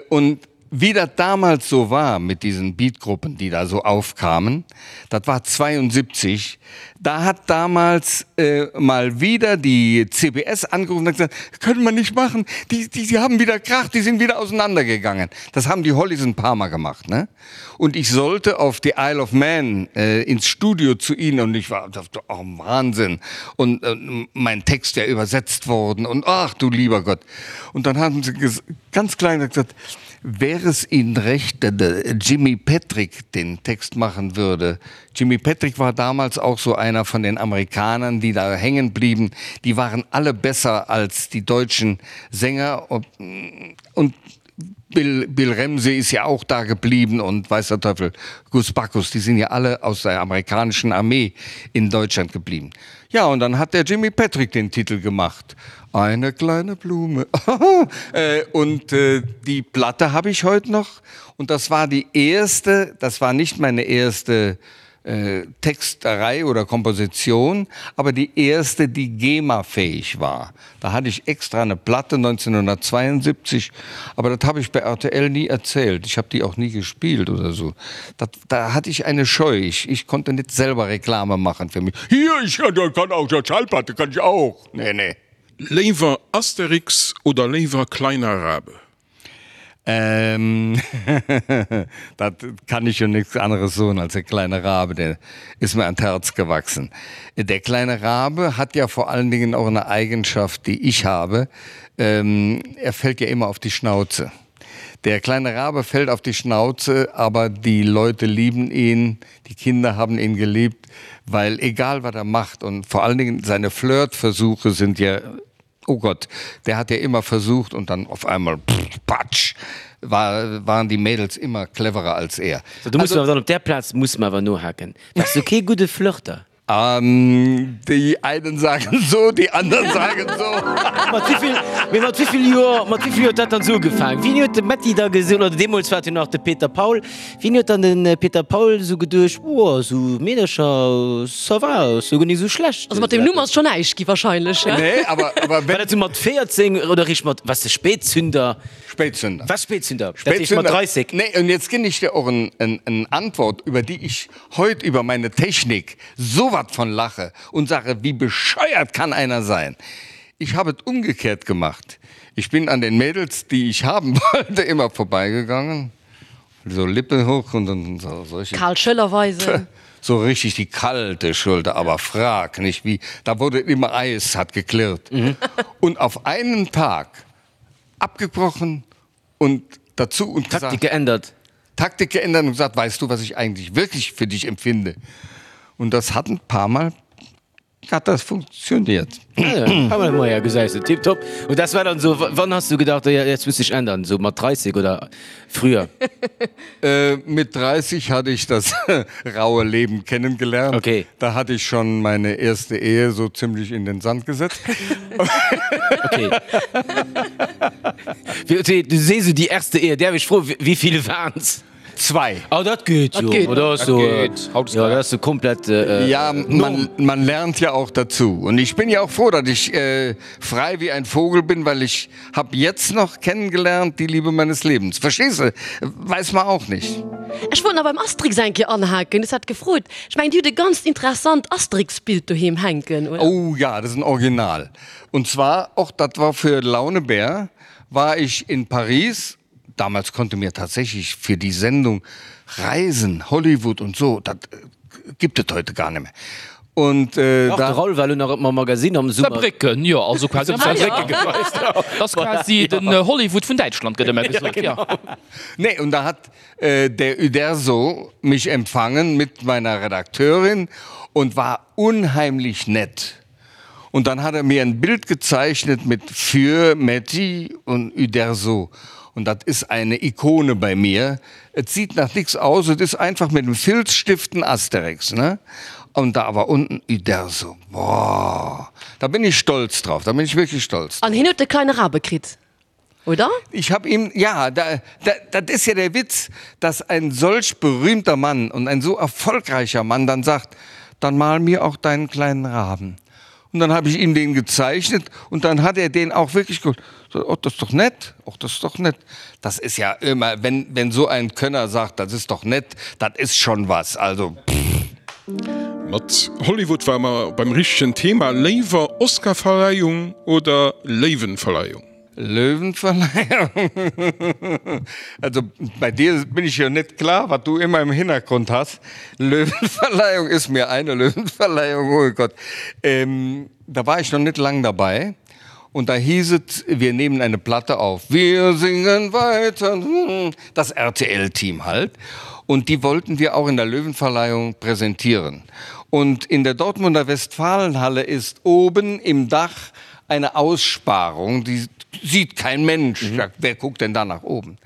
und wie dat damals so war mit diesen Beatgruppen, die da so aufkamen, dat war 72, da hat damals mal wieder die CBS angerufen und hat gesagt, können wir nicht machen, die, die, die haben wieder Krach, die sind wieder auseinandergegangen. Das haben die Hollies ein paar Mal gemacht, ne? Und ich sollte auf die Isle of Man äh, ins Studio zu ihnen und ich war oh, Wahnsinn und äh, mein Text ja übersetzt worden und ach du lieber Gott. Und dann haben sie ganz klein gesagt, wäre es ihnen recht, wenn Jimmy Patrick den Text machen würde. Jimmy Patrick war damals auch so einer von den Amerikanern, die da hängen blieben. Die waren alle besser als die deutschen Sänger und, und Bill, Bill Ramsey ist ja auch da geblieben und weiß der Teufel, Gus Bacchus, die sind ja alle aus der amerikanischen Armee in Deutschland geblieben. Ja, und dann hat der Jimmy Patrick den Titel gemacht. Eine kleine Blume. Äh, und äh, die Platte habe ich heute noch und das war die erste, das war nicht meine erste äh, Texterei oder Komposition, aber die erste, die GEMA-fähig war. Da hatte ich extra eine Platte 1972, aber das habe ich bei RTL nie erzählt. Ich habe die auch nie gespielt oder so. Das, da hatte ich eine Scheu. Ich, ich konnte nicht selber Reklame machen für mich. Hier, ich kann auch der Schallplatte kann ich auch. Nee, nee. Léiwer Asterix oder léiwer Kleiner Rabe? Ähm, dat kann ich jo nix anderes soen als der kleine Rabe, der ist mir an d'Herz gewachsen. Der kleine Rabe hat ja vor allen Dingen auch eine Eigenschaft, die ich habe, ähm, er fällt ja immer auf die Schnauze. Der kleine Rabe fällt auf die Schnauze, aber die Leute lieben ihn, die Kinder haben ihn geliebt, weil egal was er macht und vor allen Dingen seine Flirtversuche sind ja Oh Gott, der hat ja immer versucht und dann auf einmal pff, patsch, war, waren die Mädels immer cleverer als er. So, du muss also, dann op der Platz muss man awer nohaken. Wars du kee gudde Flirter? Ähm, die einen sagen so, die anderen sagen so. Mat wéivill, mee mat wéivill Joer, mat wéivill Joer huet dat dann esou ugefaangen? Wien huet de Metty da gesot, oder deemools war et jo nach de Peter Paul, Wien huet dann den Peter Paul esou geduecht, oh esou Meedercher, ça va, ass jo guer nik esou schlecht. Also mat deem Numm ass schon näischt gi wahrscheinlech, he? Nee, awer, awer War dat esou mat 14 oder eréischt mat, waars de Spätzünder? Spätzünder. Waars Spätzünder, dat heescht mat 30? Nee, und jetzt ginn ich dir och en, en, en Antwort, über die ich heut über meine Technik so wat von lache und sage, wie bescheuert kann einer sein? Ich habe et umgekehrt gemacht. Ich bin an den Mädels, die ich haben wollte, immer vorbeigegangen. So Lippen hoch und dann so solche. Kal Schëller weisen. So richtig die kalte Schulter, aber frag nicht wie, da wurde immer Eis, hat geklirrt. Und auf einen Tag abgebrochen und dazu und gesagt, Taktik geändert. Taktik geändert und gesagt, weißt du, was ich eigentlich wirklich für dich empfinde? Und das hat ein paar Mal hat das funktioniert. Ah ja, gesäis de, tipptopp. Und das war dann so, wann hast du gedacht, ja, jetzt muss ich ändern, so mat 30 oder früher? Äh, mit 30 hatte ich das raue Leben kennengelernt. Okay. Da hatte ich schon meine erste Ehe so ziemlich in den Sand gesetzt. Okay. Du sees du die erste Ehe, däerf ech froen, wéi vill waren's? Zwei. Oh, dat geet jo. geet. Dat ass jo, Dat geet. Haut ist ja, geil. dat ass jo komplett äh, Ja, man, man lernt ja auch dazu. Und ich bin ja auch froh, dass ich äh, frei wie ein Vogel bin, weil ich habe jetzt noch kennengelernt die Liebe meines Lebens. Verstehst du? Weiß man auch nicht. Ech wollt nach beim Asterix eng Kéier anhaken, du has dat gefrot. Ech mengen, Dir hutt e ganzt interessant Asterix-Bild doheem hänken, oder? Oh ja, das ist ein Original. Und zwar, och dat war für Launebär, war ich in Paris. Damals konnte mir tatsächlich für die Sendung Reisen, Hollywood und so, dat gibt et heute gar nicht mehr. Und äh, Dach, de da Raoul war elo nach mam Magazine am Summer. Saarbrécken, jo, also quasi am Saarbrécken. Dat ass quasi den Hollywood vun Däitschland, gëtt ëmmer gesot, jo. Nee, und da hat äh, der Uderzo mich empfangen mit meiner Redakteurin und war unheimlich nett. Und dann hat er mir ein Bild gezeichnet mit für Metti und Uderzo. Und das ist eine Ikone bei mir. Es sieht nach nichts aus, es ist einfach mit dem Filzstift ein Asterix, ne? Und da aber unten Uderzo. Boah, da bin ich stolz drauf, da bin ich wirklich stolz. An hien huet de kleine Rabe kritt, oder? Ich habe ihm, ja, da, da, das ist ja der Witz, dass ein solch berühmter Mann und ein so erfolgreicher Mann dann sagt, dann mal mir auch deinen kleinen Raben. Und dann habe ich ihm den gezeichnet und dann hat er den auch wirklich gut. So, oh, das ist doch nett, oh, das ist doch nett. Das ist ja immer, wenn, wenn so ein Könner sagt, das ist doch nett, das ist schon was. Also pff. Mat Hollywood ware mer beim richtegen Thema. Léiwer Oscarverleihung oder Léiwenverleihung? Löwenverleihung? Also bei dir bin ich jo net klar, wat du immer im Hintergrund has. Löwenverleihung ist mir eine Löwenverleihung, oh Gott. Ähm, da war ich noch net lang dabei und da hieß et, wir nehmen eine Platte auf. Wir singen weiter, das RTL-Team halt. Und die wollten wir auch in der Löwenverleihung präsentieren. Und in der Dortmunder Westfalenhalle ist oben im Dach eine Aussparung, die sieht kein Mensch. Mhm. Wer guckt denn da nach oben?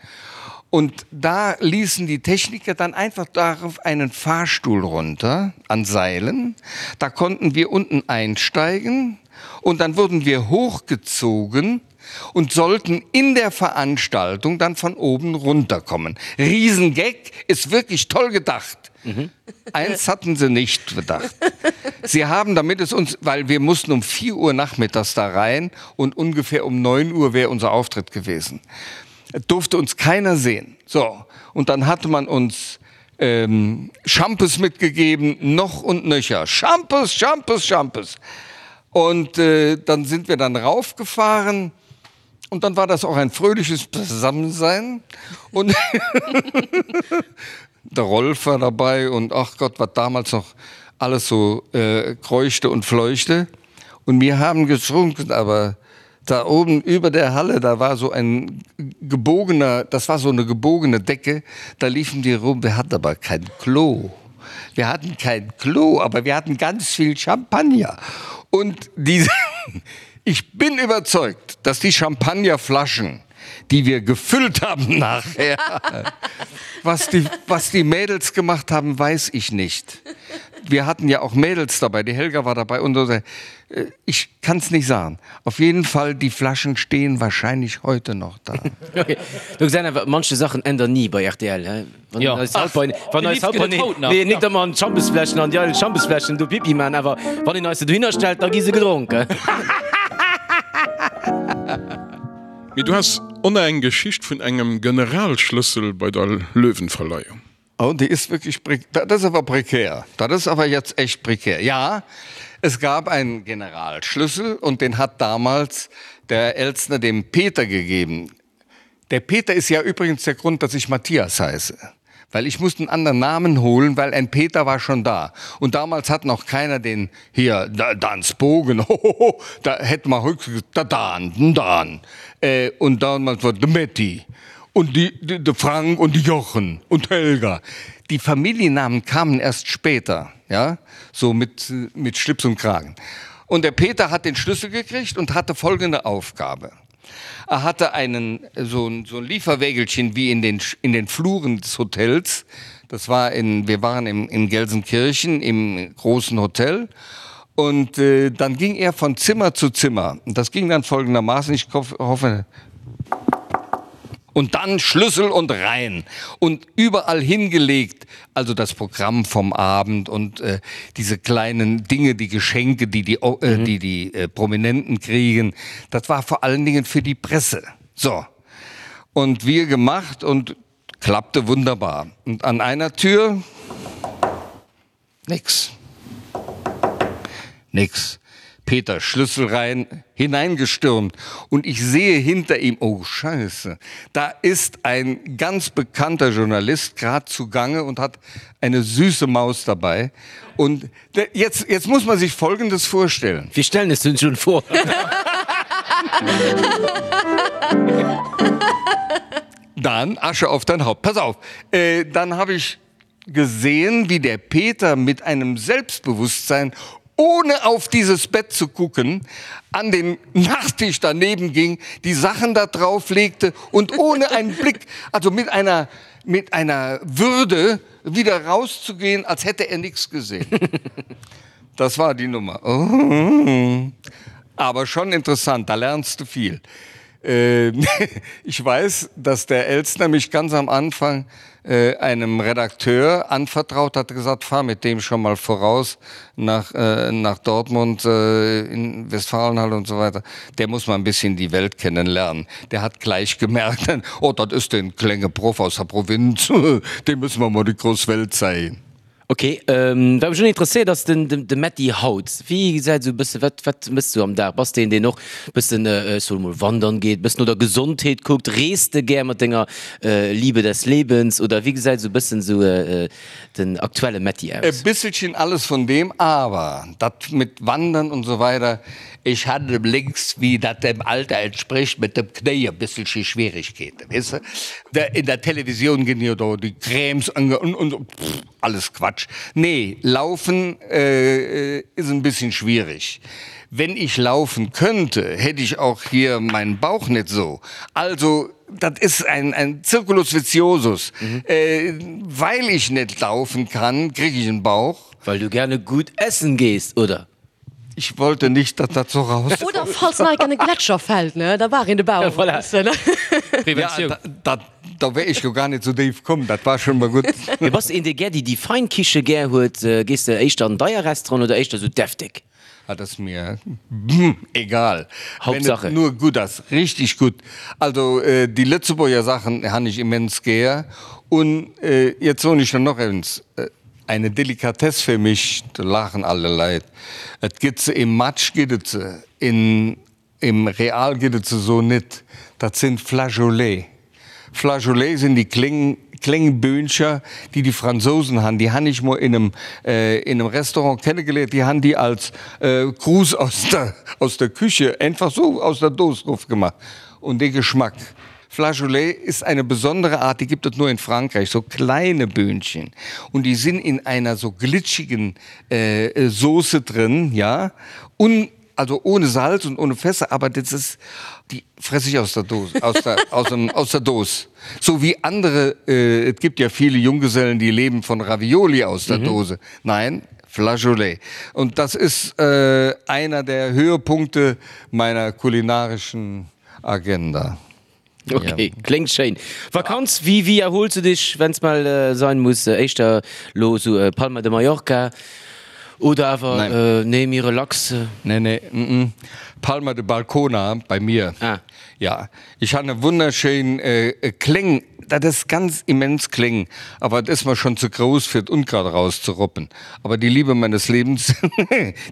Und da ließen die Techniker dann einfach darauf einen Fahrstuhl runter an Seilen. Da konnten wir unten einsteigen und dann wurden wir hochgezogen und sollten in der Veranstaltung dann von oben runterkommen. Riesengag ist wirklich toll gedacht. Mhm. Eins hatten sie nicht bedacht. Sie haben, damit es uns, weil wir mussten um 4 Uhr nachmittags da rein und ungefähr um 9 Uhr wäre unser Auftritt gewesen. Durfte uns keiner sehen. So und dann hatte man uns ähm, Schampes mitgegeben, noch und nöcher. Schampes, Schampes, Schampes. Und äh, dann sind wir dann raufgefahren und dann war das auch ein fröhliches Zusammensein und der Rolf war dabei und ach Gott, was damals noch alles so äh, kreuchte und fleuchte. Und wir haben getrunken, aber da oben über der Halle, da war so ein gebogener, das war so eine gebogene Decke, da liefen die rum, wir hatten aber kein Klo. Wir hatten kein Klo, aber wir hatten ganz viel Champagner. Und diese, ich bin überzeugt, dass die Champagnerflaschen, die wir gefüllt haben nachher, was die, was die Mädels gemacht haben, weiß ich nicht. Wir hatten ja auch Mädels dabei, die Helga war dabei und so. Äh, ich kann es nicht sagen. Auf jeden Fall, die Flaschen stehen wahrscheinlich heute noch da. Okay. Du gesäis einfach, manche Sachen ändern nie bei RTL, hä? Wann Ja. eis haut bei, wann Déi eis haut Lift bei, gëtt et haut nach. nee, net ëmmer an d'Schampesfläschen, an déi eidel Schampesfläschen do Pipi man, awer wann een eis se dohinner stellt, da gi se gedronken. Mee du has oner eng Geschicht vun engem Generalschlëssel bei der Löwenverleihung. Oh, die ist wirklich das ist aber prekär. Das ist aber jetzt echt prekär. Ja, es gab einen Generalschlüssel und den hat damals der Elstner dem Peter gegeben. Der Peter ist ja übrigens der Grund, dass ich Matthias heiße. Weil ich musste einen anderen Namen holen, weil ein Peter war schon da. Und damals hat noch keiner den hier da, Dans Bogen hohoho, da hätte man höchstens der Dan, den Dan. Äh, und damals war de Metti und die, die, de Frank und die Jochen und Helga. Die Familiennamen kamen erst später, ja, so mit, mit Schlips und Kragen. Und der Peter hat den Schlüssel gekriegt und hatte folgende Aufgabe. Er hatte einen, so ein, so ein Lieferwägelchen wie in den, in den Fluren des Hotels. Das war in, wir waren im, in Gelsenkirchen im großen Hotel. Und äh, dann ging er von Zimmer zu Zimmer. Und das ging dann folgendermaßen. Ich hoffe. Und dann Schlüssel und rein und überall hingelegt, also das Programm vom Abend und äh, diese kleinen Dinge, die Geschenke, die die, äh, mhm. die, die äh, Prominenten kriegen, das war vor allen Dingen für die Presse. So. Und wir gemacht und klappte wunderbar. Und an einer Tür nix. Nix. Peter Schlüssel rein hineingestürmt und ich sehe hinter ihm oh Scheiße, da ist ein ganz bekannter Journalist grad zugange und hat eine süße Maus dabei. Und jetzt, jetzt muss man sich Folgendes vorstellen. Wir stellen es uns schon vor. Dann Asche auf dein Haupt. Pass auf, äh, dann habe ich gesehen, wie der Peter mit einem Selbstbewusstsein, ohne auf dieses Bett zu gucken, an den Nachttisch daneben ging, die Sachen da drauf legte und ohne einen Blick, also mit einer, mit einer Würde wieder rauszugehen, als hätte er nichts gesehen. Das war die Nummer. Oh. Aber schon interessant, da lernst du viel. Äh, ich weiß, dass der Elstner mich ganz am Anfang äh, einem Redakteur anvertraut hat, gesagt, fahr mit dem schon mal voraus nach, äh, nach Dortmund, äh, in Westfalenhalle und so weiter. Der muss mal ein bisschen die Welt kennenlernen. Der hat gleich gemerkt, oh, das ist den Klänge Prof aus der Provinz, dem müssen wir mal die Großwelt zeigen. Ok, wat mech och interesséiert ass den de Metty haut. Wéi gesäit esou e bësse, wat wat mëss du am Dag? Bass de een deen och bëssen, ech soe mol wandern geet, bëssen no der Gesondheet kuckt? Rees de gär mat denger Liebe des Lebens oder wéi gesäit esou bëssen esou den aktuelle Metty aus? E bisselchen alles von dem, aber dat mit wandern und so weiter, ich hatte links, wie dat dem Alter entspricht, mit dem Knéi e bisselche Schwierigkeeten, weess de. In der Televisioun ginn jo do déi Crèmes ange und und so, pff, alles Quatsch. Nee, laufen ist ein bisschen schwierig. Wenn ich laufen könnte, hätte ich auch hier meinen Bauch net so. Also, dat ist ein, ein Circulus viciosus. Weil ich net laufen kann, krieg ich en Bauch. Weil du gerne gut essen gehst, oder? Ich wollte nicht, dass dat so raus. Oder falls nach an e Gletscher fällt, ne, da war een de Bauch. Voilà. Preventioun. Ja, dat, da wär ech jo gar net sou déif komm, dat war schon mol gutt. Mee bass de een, dee gär déi, déi fein Kiche gär huet? Gees de éischter an deier Restaurant oder éischter sou deftig? Ah, dat ass mir egal. Hauptsache. Wenn et nur gutt ass, richtig gutt. Also déi Lëtzebuerger Sachen han ech immens gär. Un jetzt soen ech der noch eins, Eine Delikatesse für mich, da laachen alle Leit. Et gëtt se im Match gëtt et se, in im Real gëtt et se so nit. Dat sinn Flageolets. Flageolets sinn déi kléng, kléng Böhncher, déi die Fransousen han. Déi han ech mol in em, in em Restaurant kennegeléiert. Déi han déi als Gruß aus der, aus der Küche einfach so aus der Dos rof gemacht. Und dee Geschmack. Flageolet ist eine besondere Art, die gibt es nur in Frankreich, so kleine Böhnchen. Und die sind in einer so glitschigen äh, Soße drin, ja. Und, also ohne Salz und ohne Fässer, aber das ist, die fresse ich aus der Dose, aus der, aus dem, aus der Dose. So wie andere, äh, es gibt ja viele Junggesellen, die leben von Ravioli aus der mhm. Dose. Nein, Flageolet. Und das ist äh, einer der Höhepunkte meiner kulinarischen Agenda. Ok, kléngt schéin. Vakanz, wéi wéi erhols du dech, wenn's mal sein muss? Éischter lo sou Palma de Mallorca oder awer nee méi relax? Nee nee, mm Palma de Balcona bei mir. Ah. Ja, ech han e wunnerschéin kléng, dat ass ganz immens kléng, awer et ass mer schon ze grouss fir d'Unkraut erauszeroppen. Aber die Liebe meines Lebens,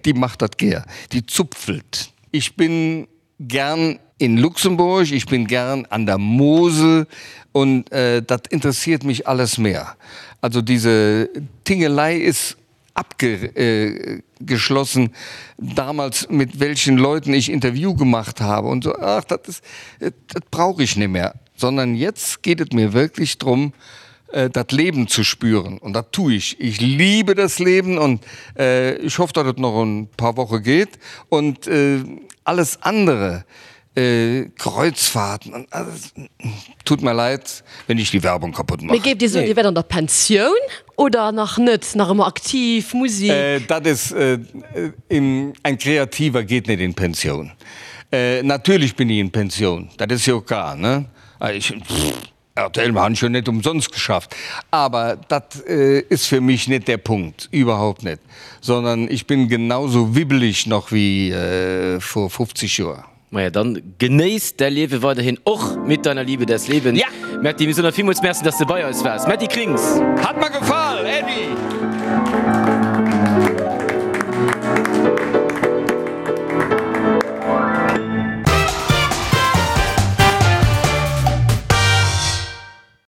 déi macht dat gär, déi zupfelt. Ich bin gern in Luxemburg, ich bin gern an der Mosel und äh, dat interessiert mich alles mehr. Also diese Tingelei ist abgeschlossen, äh, damals mit welchen Leuten ich Interview gemacht habe und so ach dat ist, äh, dat brauche ich nicht mehr, sondern jetzt geht es mir wirklich drum, äh, dat Leben zu spüren und dat tue ich. Ich liebe das Leben und äh, ich hoffe, dass es noch ein paar Wochen geht und äh, alles andere äh, Kreuzfahrten und alles, tut mir leid, wenn ich die Werbung kaputt mache. Mee géif Dir soen, Dir wäert an der Pensioun oder nach net, nach ëmmer aktiv, Musik? Äh, dat is äh, in, ein Kreativer geht net in Pension. Äh, natürlich bin ich in Pension, dat is jo klar, ne? Ech, RTL, mir han schon net umsonst geschafft. Aber dat ist für mich net der Punkt, überhaupt net, sondern ich bin genauso wibbelig noch wie vor 50 Joer. Maja, dann genéiss däi Liewe weiderhin, och mit deiner Liebe des Lebens. Ja! Metty, mir soen der villmools Merci, dass de bei eis waars. Metty Krings! Hat mer gefall, Äddi!